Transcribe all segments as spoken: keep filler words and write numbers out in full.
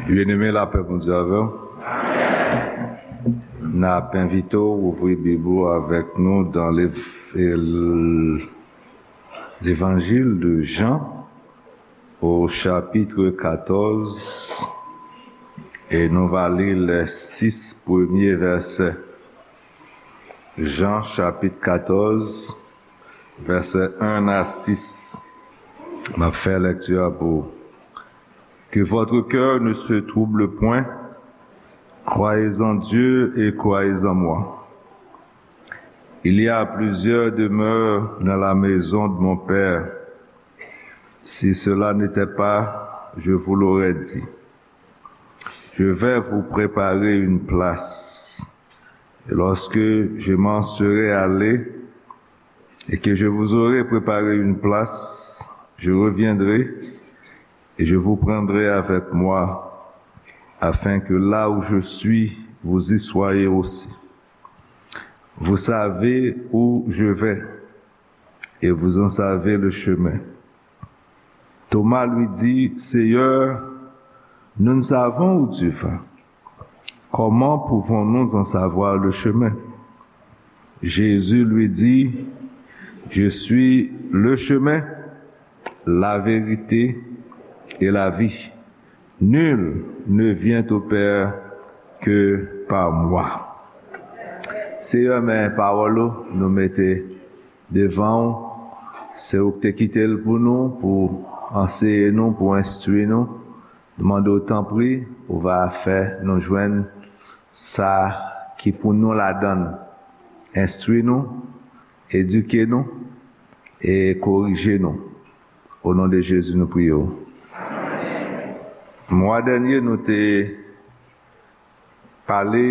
Byeneme, lapè Bondye avè w. N ap envite w ouvri Bib ou avèk nou dans l'Ev- l'Évangile de Jean, au chapitre quatorze, et nous va lire les six premiers versets. Jean chapitre quatorze, versets un à six. M ap fè lèkti a pou ou. Que votre cœur ne se trouble point. Croyez en Dieu et croyez en moi. Il y a plusieurs demeures dans la maison de mon Père. Si cela n'était pas, je vous l'aurais dit. Je vais vous préparer une place. Et lorsque je m'en serai allé et que je vous aurai préparé une place, je reviendrai et je vous prendrai avec moi, afin que là où je suis, vous y soyez aussi. Vous savez où je vais et vous en savez le chemin. Thomas lui dit, Seigneur, nous ne savons où tu vas. Comment pouvons-nous en savoir le chemin? Jésus lui dit, Je suis le chemin, la vérité et la vie. Nul ne vient au Père que par moi. Seyè, men pawòl ou nou mete devan w. Se ou ki te kite l pou nou, pou anseye nou, pou enstwi nou. Nou mande w, tanpri, ou va fè nou jwenn sa ki pou nou ladan l. Enstwi nou, edike nou e korije nou. O non de Jezi, nou priye w. Mwa dènye, nou te pale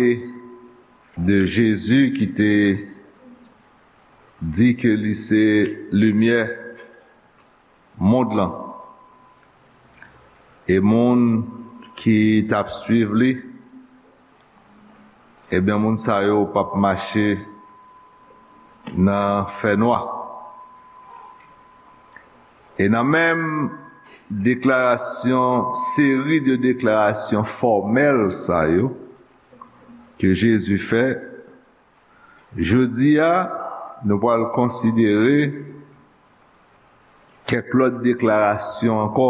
de Jezi ki te di ke li se limyè mond lan. E moun ki t ap swiv li, ebyen, moun sa yo p ap mache nan fènwa. E nan menm deklarasyon, seri de deklarasyon fòmèl sa yo ke Jezi fè, jodi a, nou pral konsidere kèk lòt deklarasyon ankò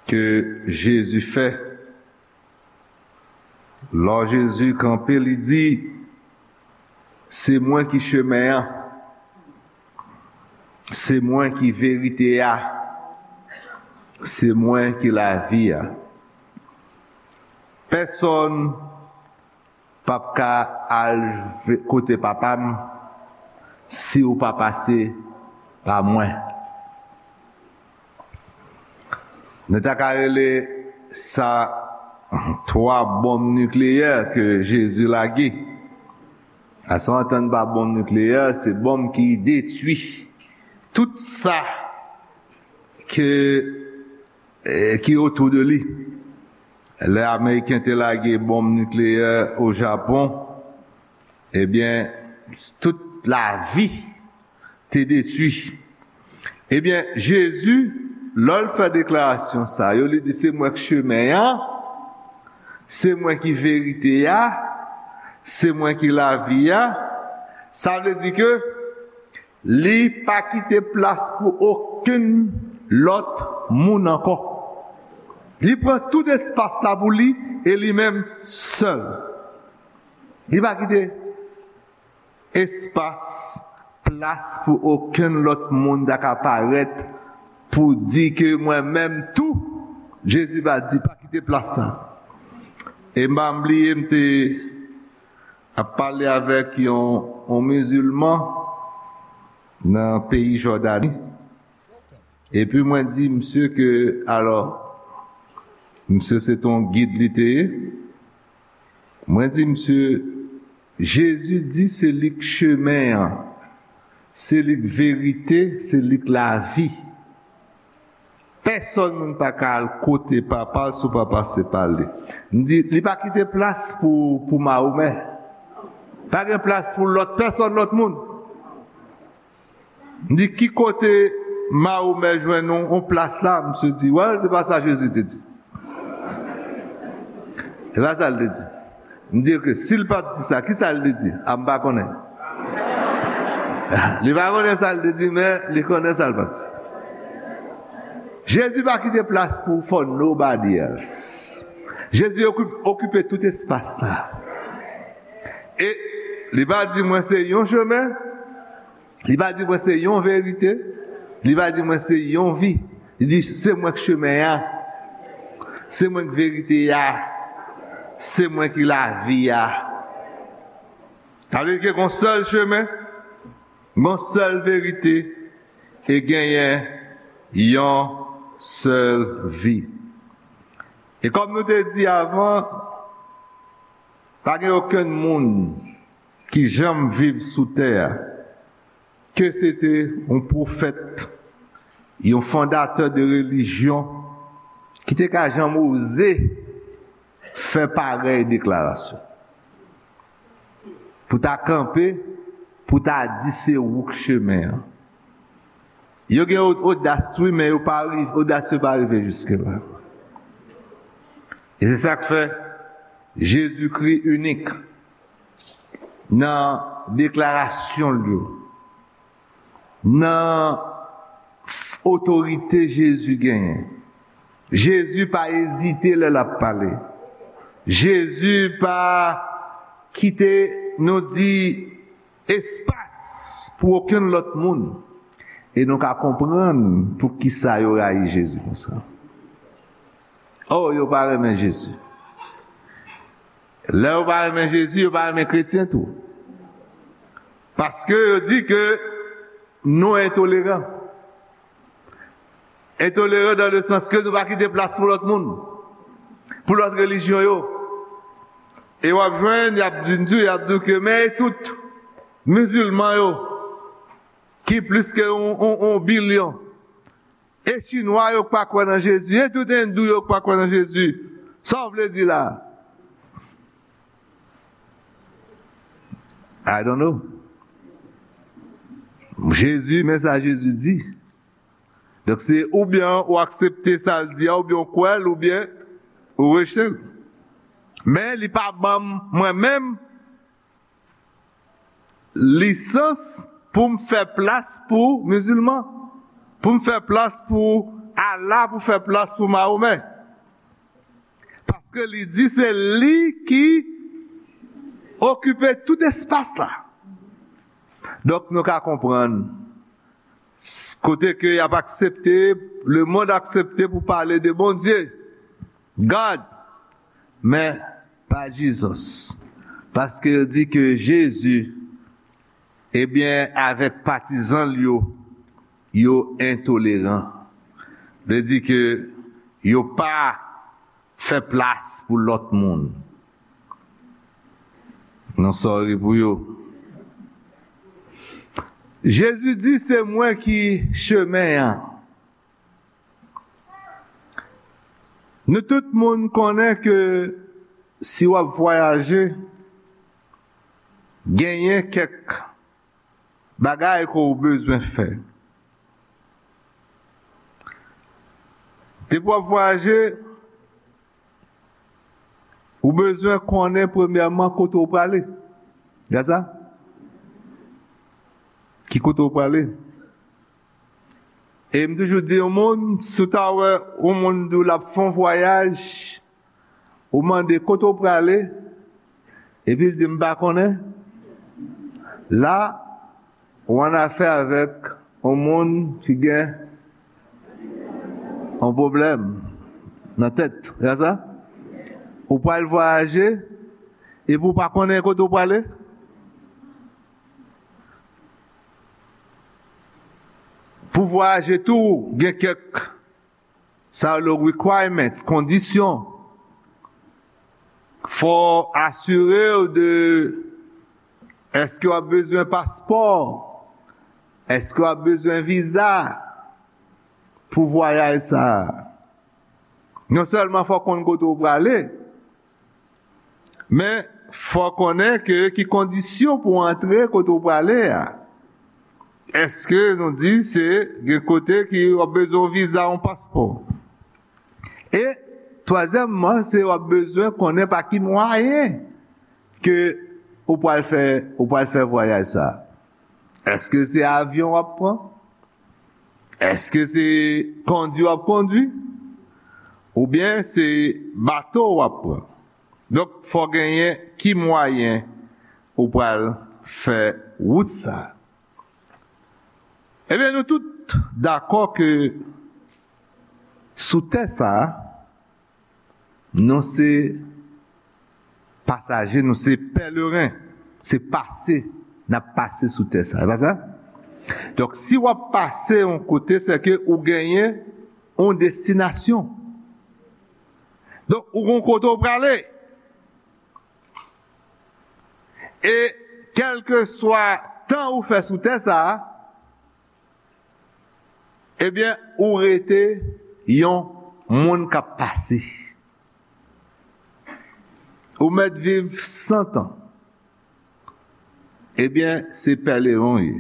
ke Jezi fè. Lò Jezi kanpe, li di, Se mwen ki chemen an, se mwen ki verite a, se mwen ki lavi a. Pèsonn p ap ka al ve- kote Papa m si w pa pase pa mwen. Nou ta ka rele sa twa bonm nikleyè ke Jezi lage. Lè w antann pa bonm nikleyè, se bonm ki detwi tout sa ke, eh, ki otou de li. Lè Ameriken te lage bonm nikleyè o Japon, ebyen, tout lavi te detwi. Ebyen, Jezi, lè l fè deklarasyon sa yo, li di, Se mwen k chemen an, se mwen ki verite a, se mwen ki lavi a. Sa vle di ke li pa kite plas pou okenn lòt moun ankò. Li pran tout espas la pou li e li menm sèl. Li pa kite espas, plas pou okenn lòt moun ta ka parèt pou di ke mwen menm tou, Jezi pa di pa kite plas sa. E m pa bliye, m te ap pale avèk yon, yon mizilman nan peyi Jòdani. Epi mwen di misye ke, alò, misye se t on gid li te ye. Mwen di misye, Jezi di se li k chemen an, se li k verite, se li k lavi. Pèsonn moun pa ka al kote Papa l si w pa pase pa li. M di, li pa kite plas pou, pou Mahomè. Pa gen plas pou lòt pèsonn, lòt moun. M di, ki kote Mahomè jwenn yon, yon plas la? Misye di, well, se pa sa Jezi te di. E pa sa l te di. M di, "Ok, si l pa t di sa, ki sa l te di?" A, m pa konnen. Li pa konnen sa l te di, men li konnen sa l pa t di. Jezi pa kite plas pou for nobody else. Jezi okipe, okipe tout espas la. E li pa di, "Mwen se yon chemen." Li pa di, "Mwen se yon verite." Li pa di, "Mwen se yon vi." Li di, "Se mwen k chemen an. Se mwen k verite a. Se mwen ki lavi a." Sa vle di ke gon sèl chemen, gon sèl verite, e genyen yon sèl vi. E kòm nou te di avan, pa gen okenn moun ki janm viv sou tè a, ke se te yon pwofèt, yon fondatè de relijyon, ki te ka janm oze fè parèy deklarasyon. Pou ta kanpe, pou ta di se ou k chemen an. Yo gen od-, odas, wi, men yo pa rive, odas yo pa rive jiske la. E se sa k fè Jezikri inik nan deklarasyon l yo, nan otorite Jezi genyen. Jezi pa ezite lè l ap pale. Jezi pa kite, nou di, espas pou okenn lòt moun. E nou ka konprann poukisa yo rayi Jezi konsa. Oh, yo pa renmen Jezi. Lè yo pa renmen Jezi, yo pa renmen kretyen tou. Paske yo di ke nou entoleran. Entoleran dans le sens ke nou pa kite plas pou lòt moun, pou lòt relijyon yo. E w ap jwenn, y ap di, y ap di ke, men e tout mizilman yo, ki plis ke yon, yon, yon bilyon. E chinwa yo k pa kwè nan Jezi, e tout endou yo k pa kwè nan Jezi. Sa w vle di la? I don't know. Jezi, men sa Jezi di. Donk, se oubyen ou aksepte sa l di a, oubyen ou kwè l, oubyen ou rejte l. Men li pa ban m, mwen menm, lisans pou m fè plas pou mizilman, pou m fè plas pou Allah, pou fè plas pou Mahomè. Paske li di se li ki okipe tout espas la. Donk, nou ka konprann, s-, kote ke y ap aksepte, lemonn aksepte pou pale de Bondye, God, men pa Jesus. Paske yo di ke Jezi, ebyen, avèk patizan l yo, yo entoleran. Vle di ke yo pa fè plas pou lòt moun. Nou sòri pou yo. Jezi di, "Se mwen ki chemen an." Nou tout moun konnen ke si w ap vwayaje, genyen kèk bagay ke w bezwen fè. Depi w ap vwayaje, ou bezwen konnen premyèman kote w prale. Gad sa? Ki kote w prale? E m toujou di yon moun, si w ta wè yon moun di w l ap fè yon vwayaj, ou mande kote w prale, epi l di m pa konnen, la, ou annafè avèk yon moun ki gen yon pwoblèm nan tèt. Se sa? Ou pral vwayaje, epi ou pa konnen kote w prale? Pou vwayaje tou, gen kèk, sa yo rele requirements, kondisyon. Fò asire w de, èske w ap bezwen paspò? Èske w ap bezwen viza pou vwayaj sa a? Non sèlman fò w konn kote w prale, men fò w konnen ke ki kondisyon pou w antre kote w prale a. Èske nou di se gen kote ki w ap bezwen yon viza, yon paspò? E Twazyèmman, se w ap bezwen konnen pa ki mwayen ke ou pral fè, ou pral fè vwayaj sa. Èske se avyon w ap pran? Èske se kondui w ap kondui? Oubyen se bato w ap pran? Donk, fò genyen ki mwayen ou pral fè wout sa. Ebyen, nou tout dakò ke sou tè sa, nou se pasaje, nou se pèleren, se pase, n ap pase sou tè sa. E pa sa? Donk, si w ap pase yon kote, se ke ou genyen yon destinasyon. Donk, ou gon kote w prale. E kèlkeswa tan ou fè sou tè sa a, ebyen, ou rete yon moun k ap pase. Ou mèt viv san tan. Ebyen, se pèleren w ye.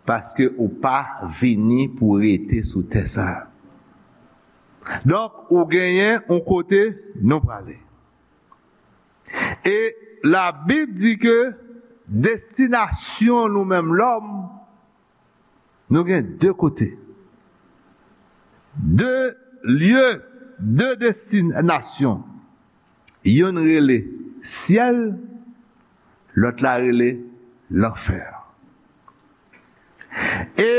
Paske ou pa vini pou rete sou tè sa a. Donk, ou genyen yon kote nou prale. E Labib di ke destinasyon nou menm lòm, nou gen de kote. De lye, de destinasyon. Youn rele syèl, lòt la rele lanfè. E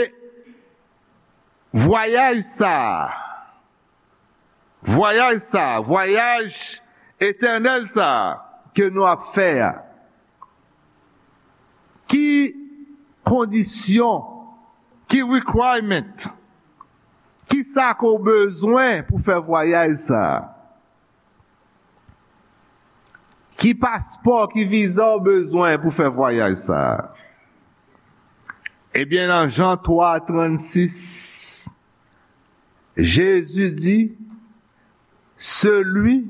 vwayaj sa a, vwayaj sa a, vwayaj etènèl sa a ke nou ap fè a, ki kondisyon, ki requirement, ki sa ke w bezwen pou fè vwayaj sa a? Ki paspò, ki viza w bezwen pou fè vwayaj sa a? Ebyen, nan Jan twa trannsis, Jezi di, celui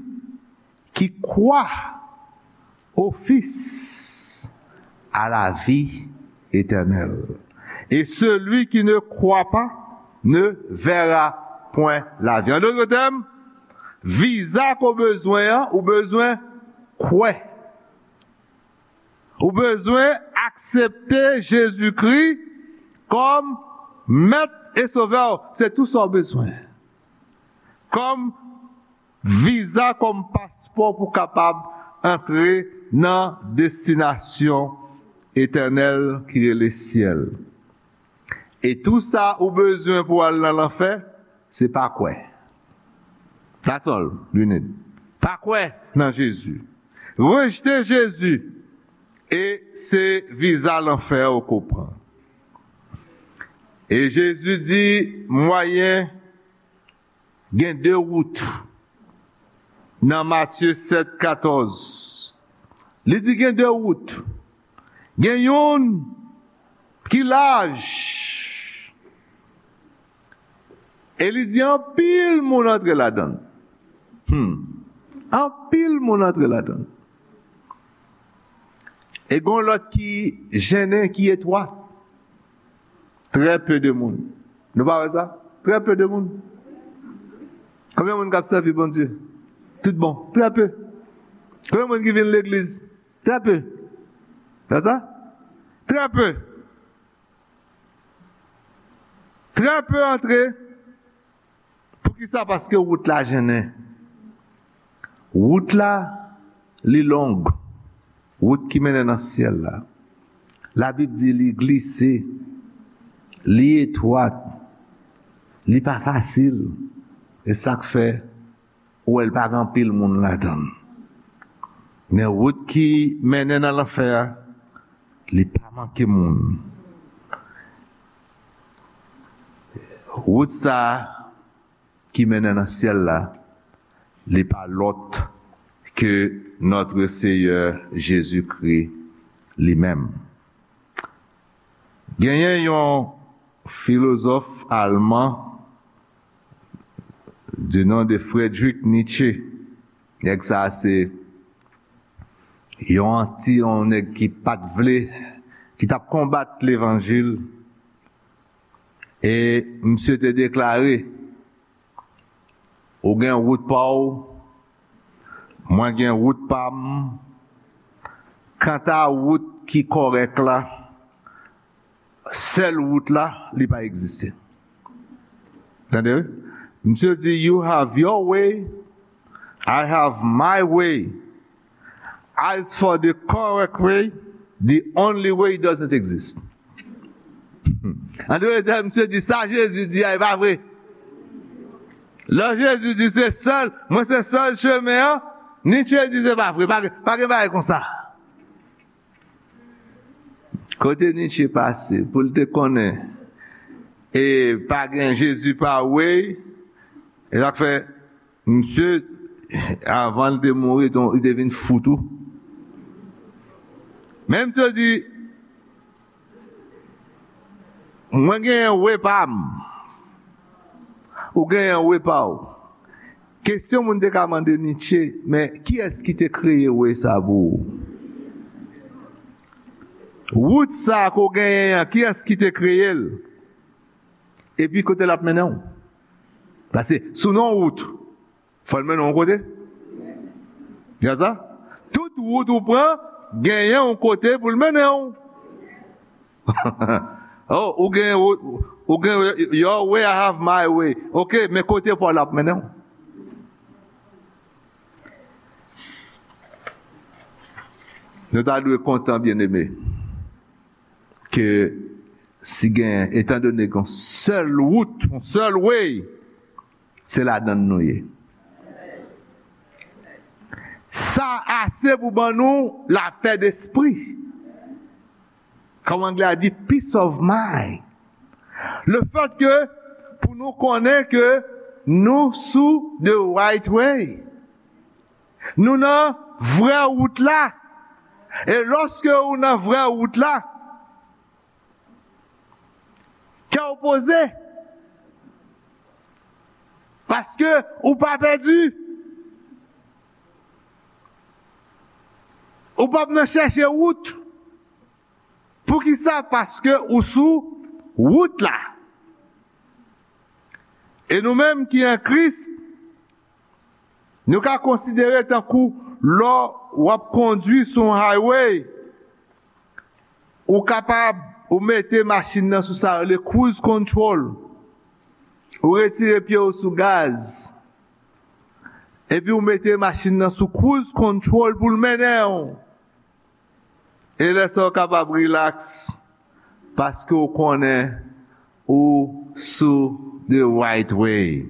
qui croit au Fils a la vie éternelle. Et celui qui ne croit pas ne verra point la vie. En d'autres termes, viza ke w bezwen an, ou bezwen kwè. Ou bezwen aksepte Jezikri kòm Mèt e Sovè w. Se tou sa w bezwen. Kòm viza, kòm paspò pou kapab antre nan destinasyon etènèl ki rele syèl. E tou sa ou bezwen pou al nan lanfè, se pa kwè. That's all you need. Pa kwè nan Jezi. Rejte Jezi, e se viza lanfè ou ke w pran. E Jezi di, mwayen, gen de wout. Nan Matye sèt katòz, li di gen de wout. Gen youn ki laj. E li di anpil moun antre ladan l. Hmm. Anpil moun antre ladan l. E gon lòt ki jennen, ki etwat. Très peu de moun. Nou pa wè sa? Très peu de moun. Konbyen moun k ap sèvi Bondye? Tout bon. Très peu. Konbyen moun ki vin legliz? Très peu. Wè sa? Très peu. Très peu antre. Poukisa? Paske wout la jennen. Wout la, li long. Wout ki mennen nan syèl la. Labib di li glise, li etwat, li pa fasil. E sa k fè ou wè l pa gen anpil moun ladan l. Men wout ki mennen nan lanfè a, li pa manke moun. Wout sa a ki mennen nan syèl la, li pa lòt ke Notre Seigneur Jésus-Christ li menm. Genyen yon filozòf alman du nom de Friedrich Nietzsche. Nèg sa a se yon anti, yon nèg ki pa t vle, ki t ap konbat levanjil. E misye te deklare, Ou gen wout pa w, mwen gen wout pa m. Kanta wout ki kòrèk la, sèl wout la, li pa egziste. Tande, wi? Misye di, "You have your way, I have my way. As for the correct way, the only way doesn't exist." An dwe di, misye di, "Sa Jezi di a, e pa vre." Lè Jezi di, "Se sèl, mwen se sèl chemen an," Nietzsche di, "Se pa vre, pa gen, pa gen bagay konsa." Kote Nietzsche pase, pou l te konnen, e pa gen Jezi pa way, e sa k fè, misye, avan l te mouri, li te vin fou tou. Men misye di, "Mwen genyen way pa m, ou genyen way pa w." Kesyon moun te ka mande Nietzsche, "Men kiyès ki te kreye way sa pou ou? Wout sa ke w genyen an, kiyès ki te kreye l? Epi kote l ap mennen w?" Paske si w nan yon wout, fò l mennen w yon kote. Gen sa? Tout wout ou pran, genyen yon kote pou l mennen w. Oh, ou gen, ou, ou gen your way, I have my way. Ok, men kote pa w la ap mennen w? Nou ta dwe kontan, byeneme, ke si gen, etandone gen yon sèl wout, yon sèl way, se ladan l nou ye. Sa ase pou ban nou lapè despri. Kòm anglè a di, peace of mind. Le fait que, pou nou konnen ke nou sou the right way. Nou nan vrè wout la. E lòske ou nan vrè wout la, kè w poze. Paske ou pa pèdi. Ou p ap nan chèche wout. Poukisa? Paske ou sou wout la. E nou menm ki an Kris, nou ka konsidere tankou lè w ap kondui sou yon highway, ou kapab, ou mete machin nan sou sa yo rele cruise control. Ou retire pye w sou gaz. Epi ou mete machin nan sou cruise control pou l mennen w. E lè sa w kapab rilaks, paske w konnen ou sou the right way.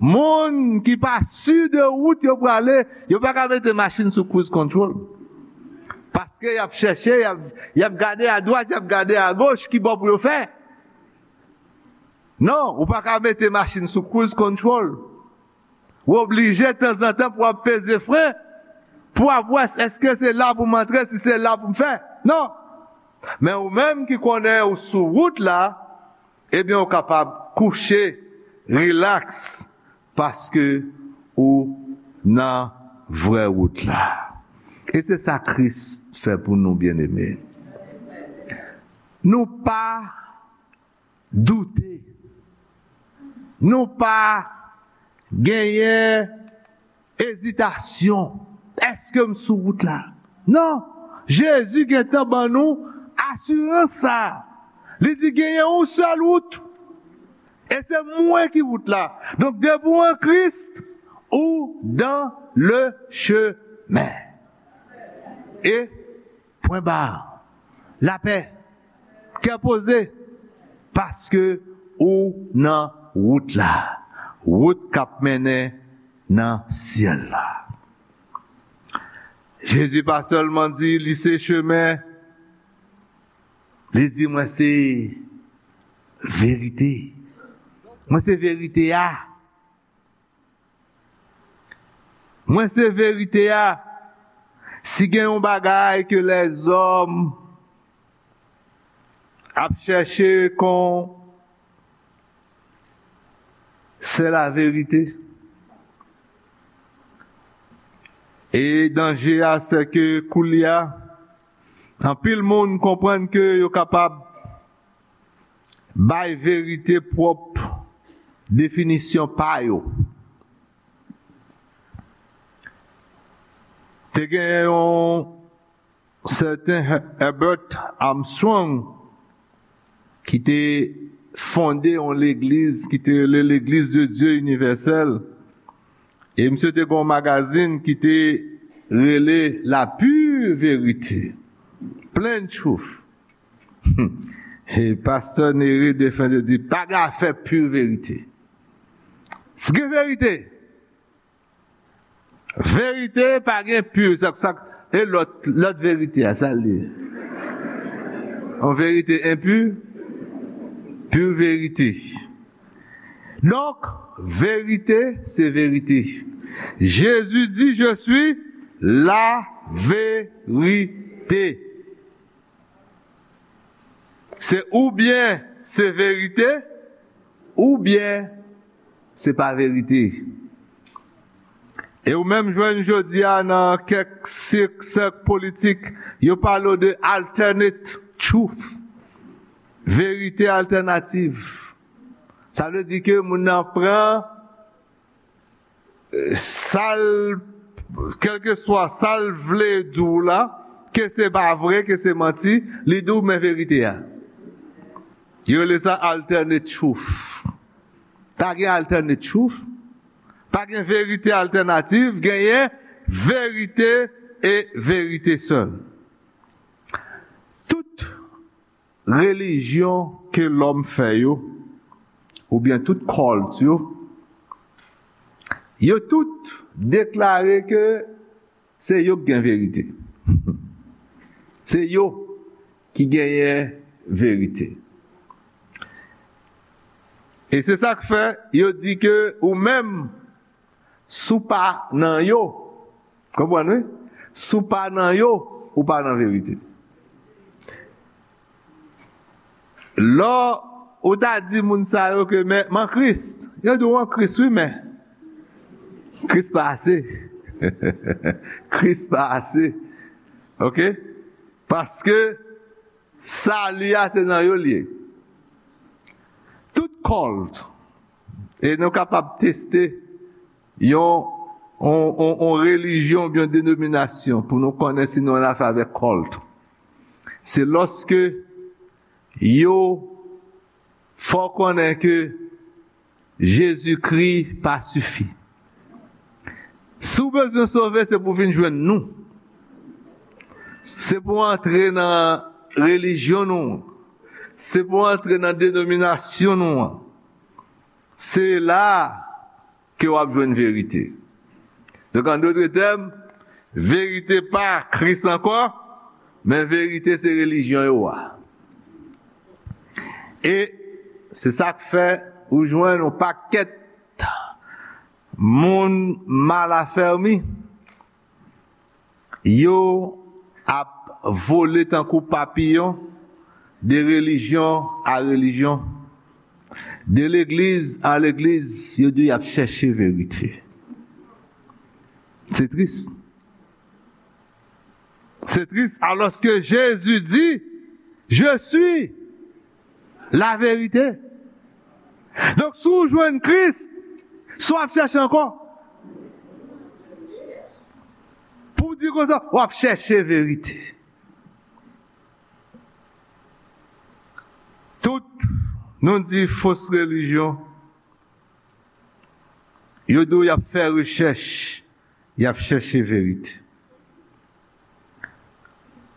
Moun ki pa si de wout yo prale, yo pa ka mete machin sou cruise control. Paske y ap chèche, y ap, y ap gade adwat, y ap gade agoch, ki bò pou yo fè. Non, ou pa ka mete machin sou cruise control. Ou oblije tanzantan pou w ap peze fren, pou w ap wè èske se la pou m antre, si se la pou m fè. Non. Men ou menm ki konnen ou sou wout la, ebyen ou kapab kouche, rilaks, paske ou nan vrè wout la. E se sa Kris fè pou nou, byeneme. Nou pa doute. Nou pa genyen ezitasyon. Èske m sou wout la? Non. Jezi gentan ban nou asirans sa. Li di genyen yon sèl wout. E se mwen ki wout la. Donk, depi w an Kris, ou dans le chemin. E pwen ba. Lapè. Kè poze. Paske ou nan wout la. Wout k ap mennen nan syèl la. Jezi pa sèlman di li se chemen, li di, "Mwen se verite." Mwen se verite a. Mwen se verite a. Si gen yon bagay ke lèzòm ap chèche kon, se laverite. E danje a, se ke koulye a, anpil moun konprann ke yo kapab bay verite pwòp definisyon pa yo. Te gen yon sèten Herbert Armstrong ki te fonde yon legliz ki te rele Legliz de Dye Inivèsèl. E misye te gen yon magazin ki te rele La Pure Vérité, Plain Truth. E pastè Neri Defens te di, pa gen afè pure vérité. Si gen verite, verite pa gen pure, sa, sa, e lòt, lòt verite a, sa l ye? Yon verite enpi? Pure vérité. Donk, verite, se verite. Jezi di, je suis la vérité. Se oubyen se verite, oubyen se pa verite. E ou menm jwenn jodi a nan kèk sèk, sèk politik, yo pale w de alternate truth, verite altènativ. Sa vle di ke moun nan pran, eh, sa l, kèlkeswa sa l vle di w la, ke se pa vre, ke se manti, li di w men verite a. Yo rele sa alternate truth. Pa gen alternate truth. Pa gen verite altènativ, genyen verite e verite sèl. Tout relijyon ke lòm fè yo, oubyen tout cult yo, yo tout deklare ke se yo ki gen verite. Se yo ki genyen verite. E se sa k fè yo di ke ou menm, si w pa nan yo, konprann wi? Si w pa nan yo, ou pa nan verite. Lè ou ta di moun sa yo ke men, m an Kris, yo di w an Kris wi, men Kris pa ase. Kris pa ase. Oke? Paske sali a se nan yo l ye. Tout cult, e nou kapab teste yon, yon, yon, yon relijyon oubyen yon denominasyon pou nou konnen si nou annafè avèk cult. Se lòske yo fè w konnen ke Jezikri pa sifi. Si w bezwen sove, se pou w vin jwenn nou. Se pou w antre nan relijyon nou an. Se pou w antre nan denominasyon nou an. Se la ke w ap jwenn verite. Donk, an dòt tèm, verite pa Kris ankò, men verite se relijyon yo a. E se sa k fè ou jwenn yon pakèt moun mal afèmi, yo ap vole tankou papiyon de relijyon a relijyon, de legliz a legliz, yo di y ap chèche verite. Se tris. Se tris, alòske Jezi di, je suis la vérité. Donk, si w jwenn Kris, sa w ap chèche ankò? Pou w di konsa, w ap chèche verite. Tout, nou di fos relijyon, yo di w y ap fè rechèch, y ap chèche verite.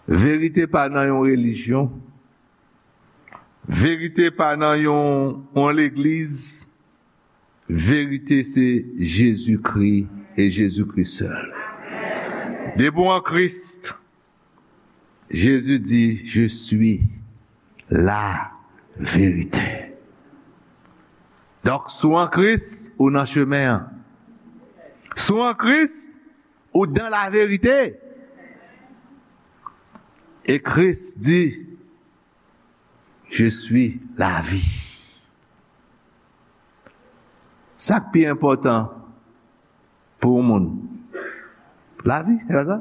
Verite pa nan yon relijyon. Verite pa nan yon, yon legliz. Verite se Jezikri e Jezikri sèl. Depi w an Kris, Jezi di, je suis la vérité. Donk, si w an Kris, ou nan chemen an. Si w an Kris, ou dans la vérité. E Kris di, je suis la vie. Sa k pi enpòtan pou yon moun? Lavi, se pa sa?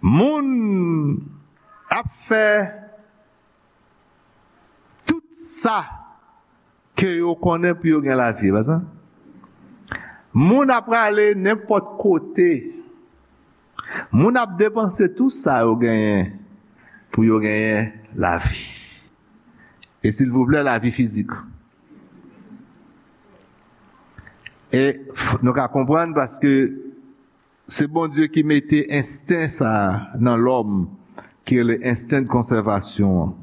Moun ap fè tout sa ke yo konnen pou yo gen lavi, se pa sa? Moun ap prale nenpòt kote. Moun ap depanse tou sa yo genyen pou yo genyen lavi. E silvouplè, lavi fizik. E f- nou ka konprann paske se Bondye ki mete ensten sa a nan lòm, ki rele ensten de konsèvasyon an.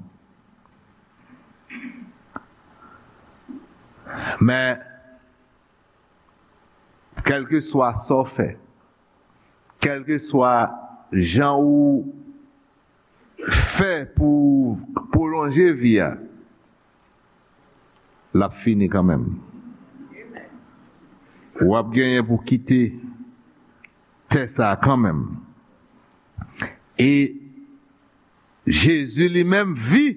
Men, kèlkeswa sa w fè, kèlkeswa jan ou fè pou pwolonje vi a, l ap fini kanmenm. W ap genyen pou kite tè sa a kanmenm. E Jezi li menm, vi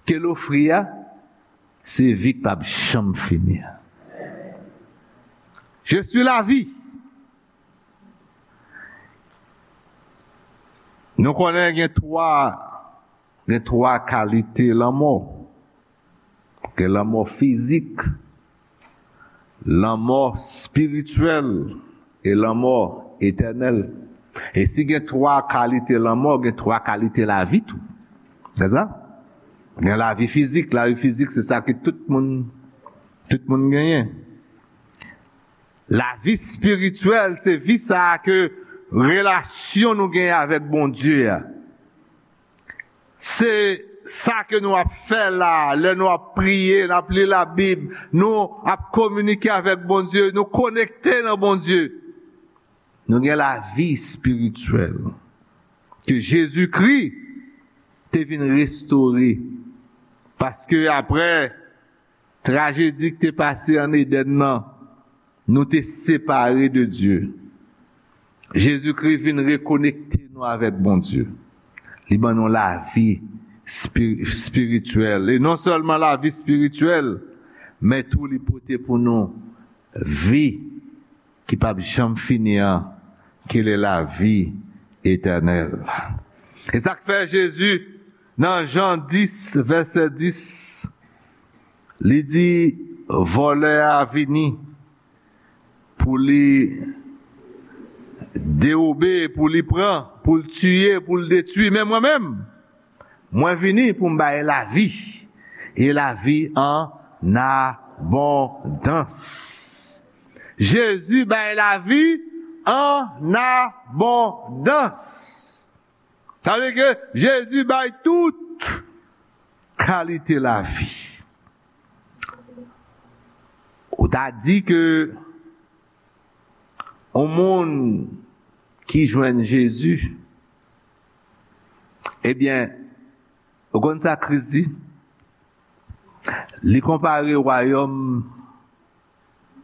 ke l ofri a, se vi k p ap janm fini a. Je suis la vie. Nou konnen gen twa, gen twa kalite lanmò. Gen lanmò fizik, lanmò espirityèl e lanmò etènèl. E si gen twa kalite lanmò, gen twa kalite lavi tou. Se sa? Gen lavi fizik. Lavi fizik, se sa ke tout moun, tout moun genyen. Lavi espirityèl, se vi sa a ke relasyon nou genyen avèk Bondye a. Se sa ke nou ap fè la, lè nou ap priye, n ap li Labib, nou ap kominike avèk Bondye, nou konekte nan Bondye. Nou gen lavi espirityèl ke Jezikri te vin restore. Paske apre trajedi ki te pase ann Edenn nan, nou te separe de Dye. Jezikri vin rekonekte nou avèk Bondye. Li ban nou lavi espi- espirityèl. E non sèlman lavi espirityèl, men tou li pote pou nou vi ki p ap janm fini an, ki le lavi etènèl. E sa k fè Jezi, nan Jan dis, vèsè dis, li di, vòlè a vini pou li dewobe, pou li pran, pou l tiye, pou l detwi. Men mwen menm, mwen vini pou m bay lavi, e lavi an abondans. Jezi bay lavi an abondans. Sa vle di ke Jezi bay tout kalite lavi. Ou ta di ke yon moun ki jwenn Jezi, ebyen, ou konn sa Kris di? Li konpare wayòm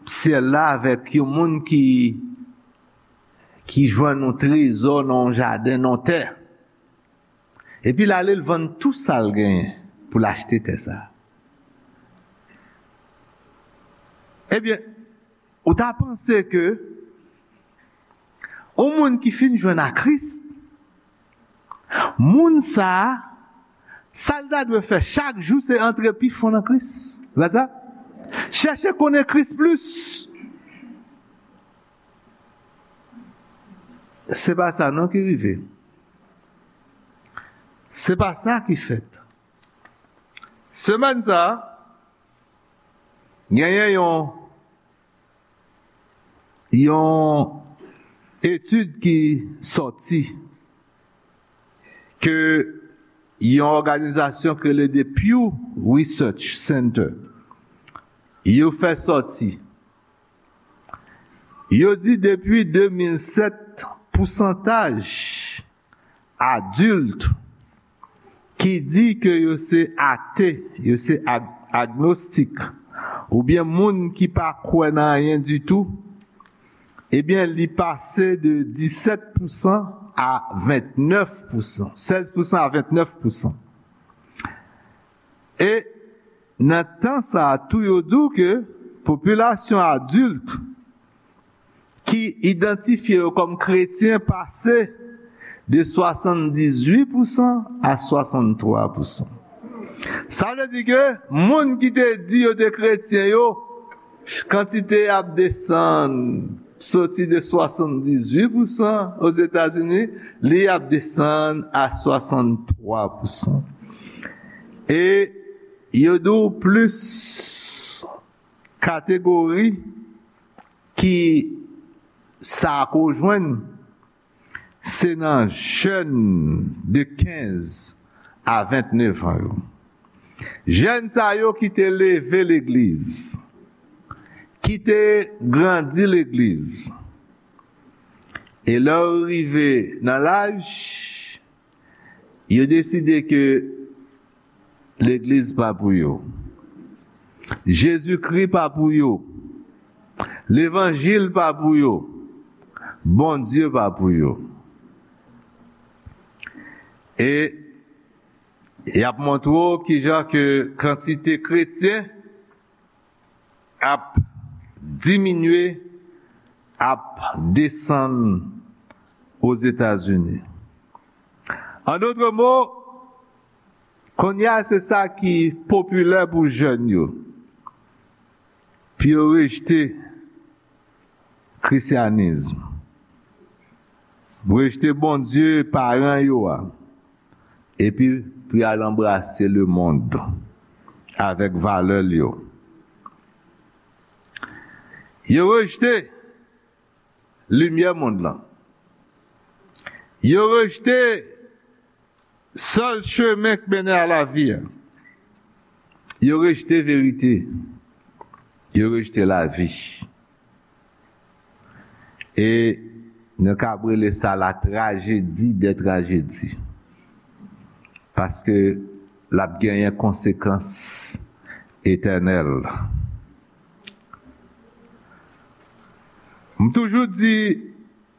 syèl la avèk yon moun ki, ki jwenn yon trezò nan yon jaden, nan yon tè. Epi l ale, l vann tou sa l genyen pou l achte tè sa a. Ebyen, ou ta panse ke yon moun ki fin jwenn a Kris, moun sa a, sa l ta dwe fè chak jou, se antre pi fon nan Kris. Se pa sa? Chèche konnen Kris plis. Se pa sa non ki rive. Se pa sa ki fèt. Semèn sa a, genyen yon, yon etid ki sòti ke yon òganizasyon ki rele The Pew Research Center, yo fè sòti. Yo di depi de mil sèt, pousantaj adilt ki di ke yo se ate, yo se ag- agnostik, oubyen moun ki pa kwè nan anyen ditou, ebyen, li pase de disèt pousan a vennèf pousan, sèz pousan a vennèf pousan. E nan tan sa a tou, yo di w ke popilasyon adilt ki idantifye yo kòm kretyen pase de swasanndizuit pousan a swasanntwa pousan. Sa vle di ke moun ki te di yo te kretyen yo, kantite ap desann, soti de swasanndizuit pousan Ozetazini, li ap desann a swasanntwa pousan. E yo di w plis kategori ki sa ko jwenn, se nan jèn de kenz a ventnef an yo. Jèn sa yo ki te leve legliz, ki te grandi legliz. E lè yo rive nan laj, yo deside ke legliz pa pou yo. Jezikri pa pou yo. Levanjil pa pou yo. Bondye pa pou yo. E y ap montre w kijan ke kantite kretyen ap diminye, ap desann Ozetazini. An dòt mo, kounye a se sa ki popilè pou jèn yo. Pou yo rejte krisyanis, rejte Bondye paran yo a, epi pou y al anbrase lemonn avèk valè l yo. Yo rejte limyè mond lan. Yo rejte sèl chemen k mennen a lavi a. Yo rejte verite. Yo rejte lavi. E nou kab rele sa la trajedi dè trajedi. Paske l ap genyen konsekans etènèl. M toujou di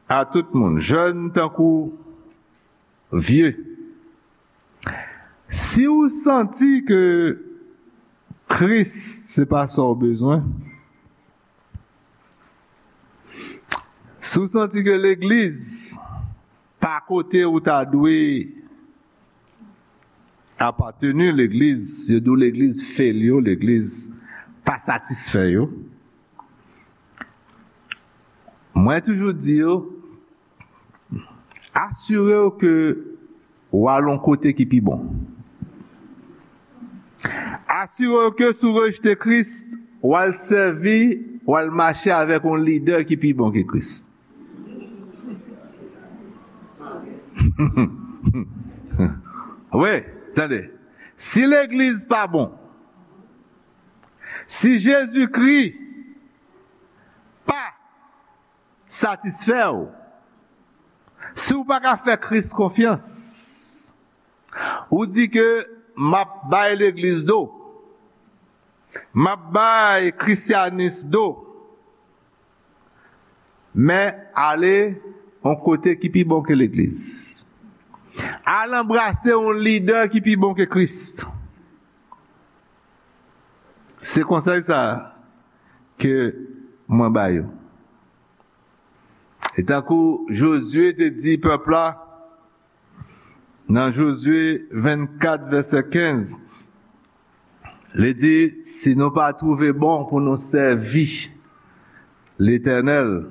a tout moun, jèn tankou vye, si w santi ke Kris se pa sa w bezwen, si w santi ke legliz pa kote ou ta dwe apateni, legliz, yo di w legliz fail yo, legliz pa satisfè yo. Mwen toujou di yo, asire w ke w al yon kote ki pi bon. Asire w ke si w rejte Kris, w al sèvi, w al mache avèk yon lidè ki pi bon ke Kris. Wi, tande. Si legliz pa bon, si Jezikri pa satisfè w, si w pa ka fè Kris konfyans, ou di ke m ap bay legliz do, m ap bay krisyanis do, men ale yon kote ki pi bon ke legliz. Al anbrase yon lidè ki pi bon ke Kris. Se konsèy sa a ke mwen ba yo. E tankou Jozye te di pèp la, nan Jozye vennkat, vèsè kenz, li di, si nou pa twouve bon pou nou sèvi Letènèl,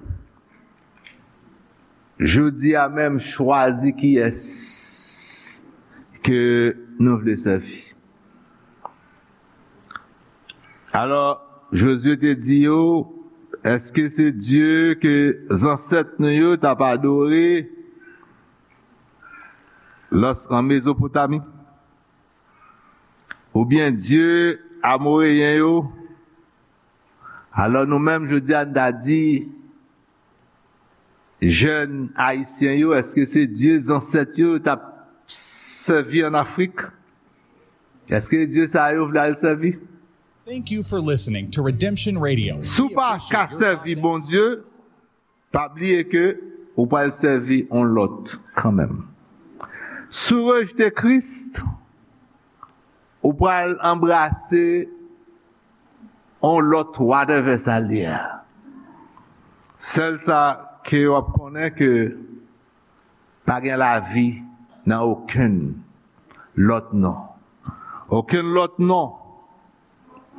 jodi a menm, chwazi kiyès ke nou vle sèvi. Alò, Jozye te di yo, èske se Dye ke zansèt nou yo t ap adore lòs an Mezopotami? Oubyen Dye Amoreyen yo? Alò, nou menm, jodi a, n ta di, jèn ayisyen yo, èske se Dye zansèt yo t ap sèvi ann Afrik? Èske Dye sa yo vle al sèvi? Thank you for listening to Redemption Radio. Si w pa ka sèvi Bondye, pa bliye ke ou pral sèvi yon lòt kanmenm. Si w rejte Kris, ou pral anbrase yon lòt whatever sa l ye a. Sèl sa ke w ap konnen ke pa gen lavi nan okenn lòt non. Okenn lòt non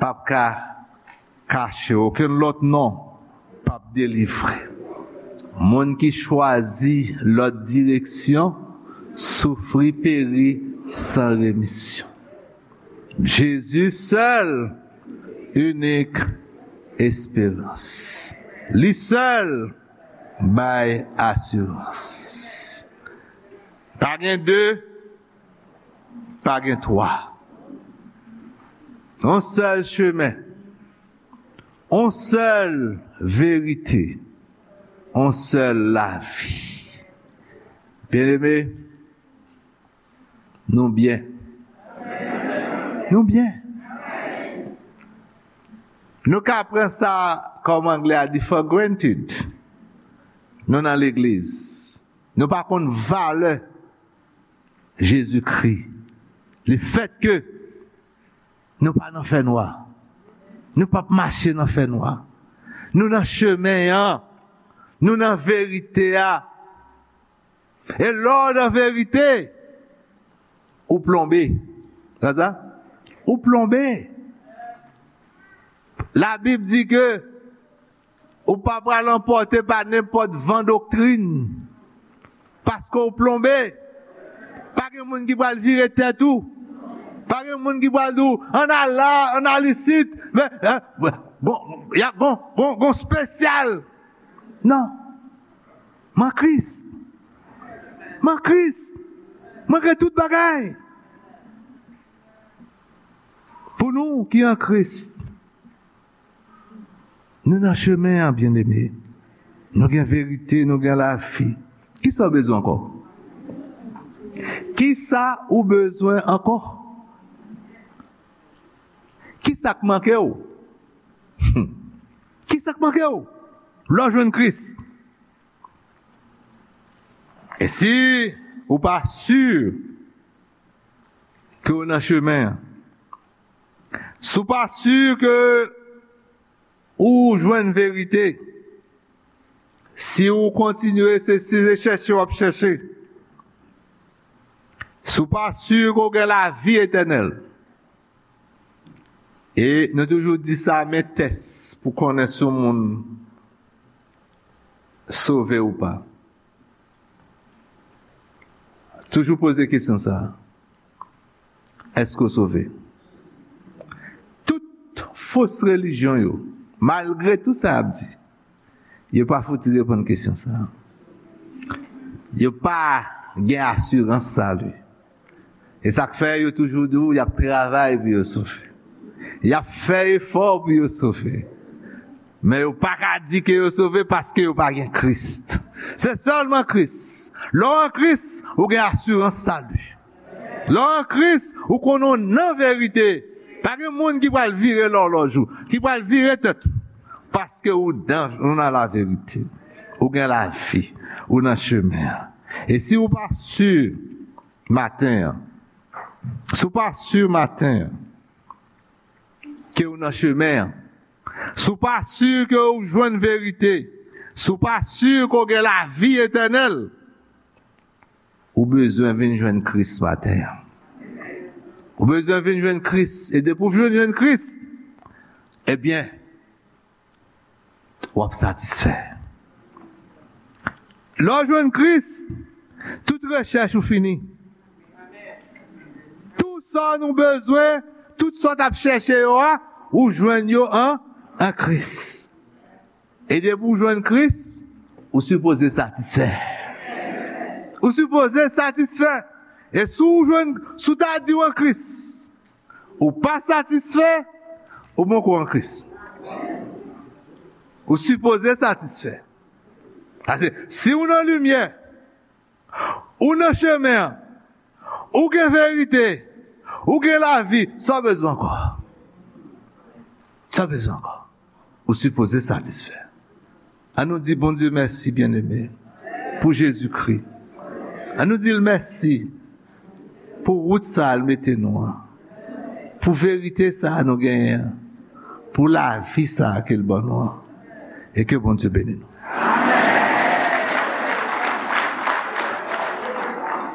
p ap ka kache, okenn lòt non p ap delivre. Moun ki chwazi lòt direksyon soufri, peri san remisyon. Jezi sèl, inik esperans. Li sèl bay asirans. Pa gen de, pa gen twa. Yon sèl chemen, yon sèl verite, yon sèl lavi. Byeneme, nou byen. Nou byen. Nou ka pran sa, kòm anglè a di, for granted. Nou nan legliz. Nou pa konn valè Jezikri. Lefètke nou pa nan fènwa. Nou p ap mache nan fènwa. Nou nan chemen an. Nou nan verite a. E lè w nan verite, ou plonbe. Sa sa? Ou plonbe. Labib di ke ou pa pral anpòte pa nenpòt van doktrin. Paske w plonbe. Pa gen moun ki pral vire tèt ou. Pa gen moun ki pral di w, ann al la, ann al isit. Men, bon, y ap gon, gon, gon spesyal. Non. M an Kris. M an Kris. Mwen gen tout bagay. Pou nou ki an Kris, nou nan chemen an, byeneme. Nou gen verite, nou gen lavi. Kisa w bezwen ankò? Kisa ou bezwen ankò? Kisa k manke w? Hmm. Kisa k manke w? Lè w jwenn Kris. E si ou pa si ke w nan chemen an, si w pa si ke ou jwenn verite, si ou kontinye, se, se chèche w ap chèche, si w pa si ke w gen lavi etènèl, e nou toujou di sa, men tès pou konnen si yon moun sove ou pa. Toujou poze kesyon sa a. Èske w sove? Tout fos relijyon yo, malgre tout sa y ap di, yo pa fouti reponn kesyon sa a. Yo pa gen asirans sali. E sa k fè yo toujou di w y ap travay pou yo sove. Y ap fè efò pou yo sove. Men yo pa ka di ke yo sove paske yo pa gen Kris. Se sèlman Kris. Lè w an Kris, ou gen asirans sali. Lè w an Kris, ou konnen w nan verite. Pa gen moun ki pral vire lòlòj ou, ki pral vire tèt ou. Paske ou dan, ou nan laverite. Ou gen lavi, ou nan chemen an. E si ou pa si maten an, si w pa si maten an ke w nan chemen an, si w pa si ke w jwenn verite, si w pa si ke w gen lavi etènèl, ou bezwen vin jwenn Kris maten an. Ou bezwen vin jwenn Kris. E depi w vin jwenn Kris, ebyen, w ap satisfè. Lè w jwenn Kris, tout rechèch ou fini. Tout sa nou bezwen, tout sa w t ap chèche yo a, ou jwenn yo an, an Kris. E depi w jwenn Kris, ou sipoze satisfè. Ou sipoze satisfè. E si w jwenn, si w ta di w an Kris, ou pa satisfè, ou poko an Kris. Ou sipoze satisfè. Paske si w nan limyè, ou nan chemen an, ou gen verite, ou gen lavi, sa w bezwen ankò? Sa w bezwen ankò? Ou sipoze satisfè. Ann nou di Bondye mèsi, byeneme, pou Jezikri. Ann nou di l mèsi pou wout sa a l mete nou an, pou verite sa a nou genyen an, pou lavi sa a ke l ban nou an. E ke Bondye beni nou.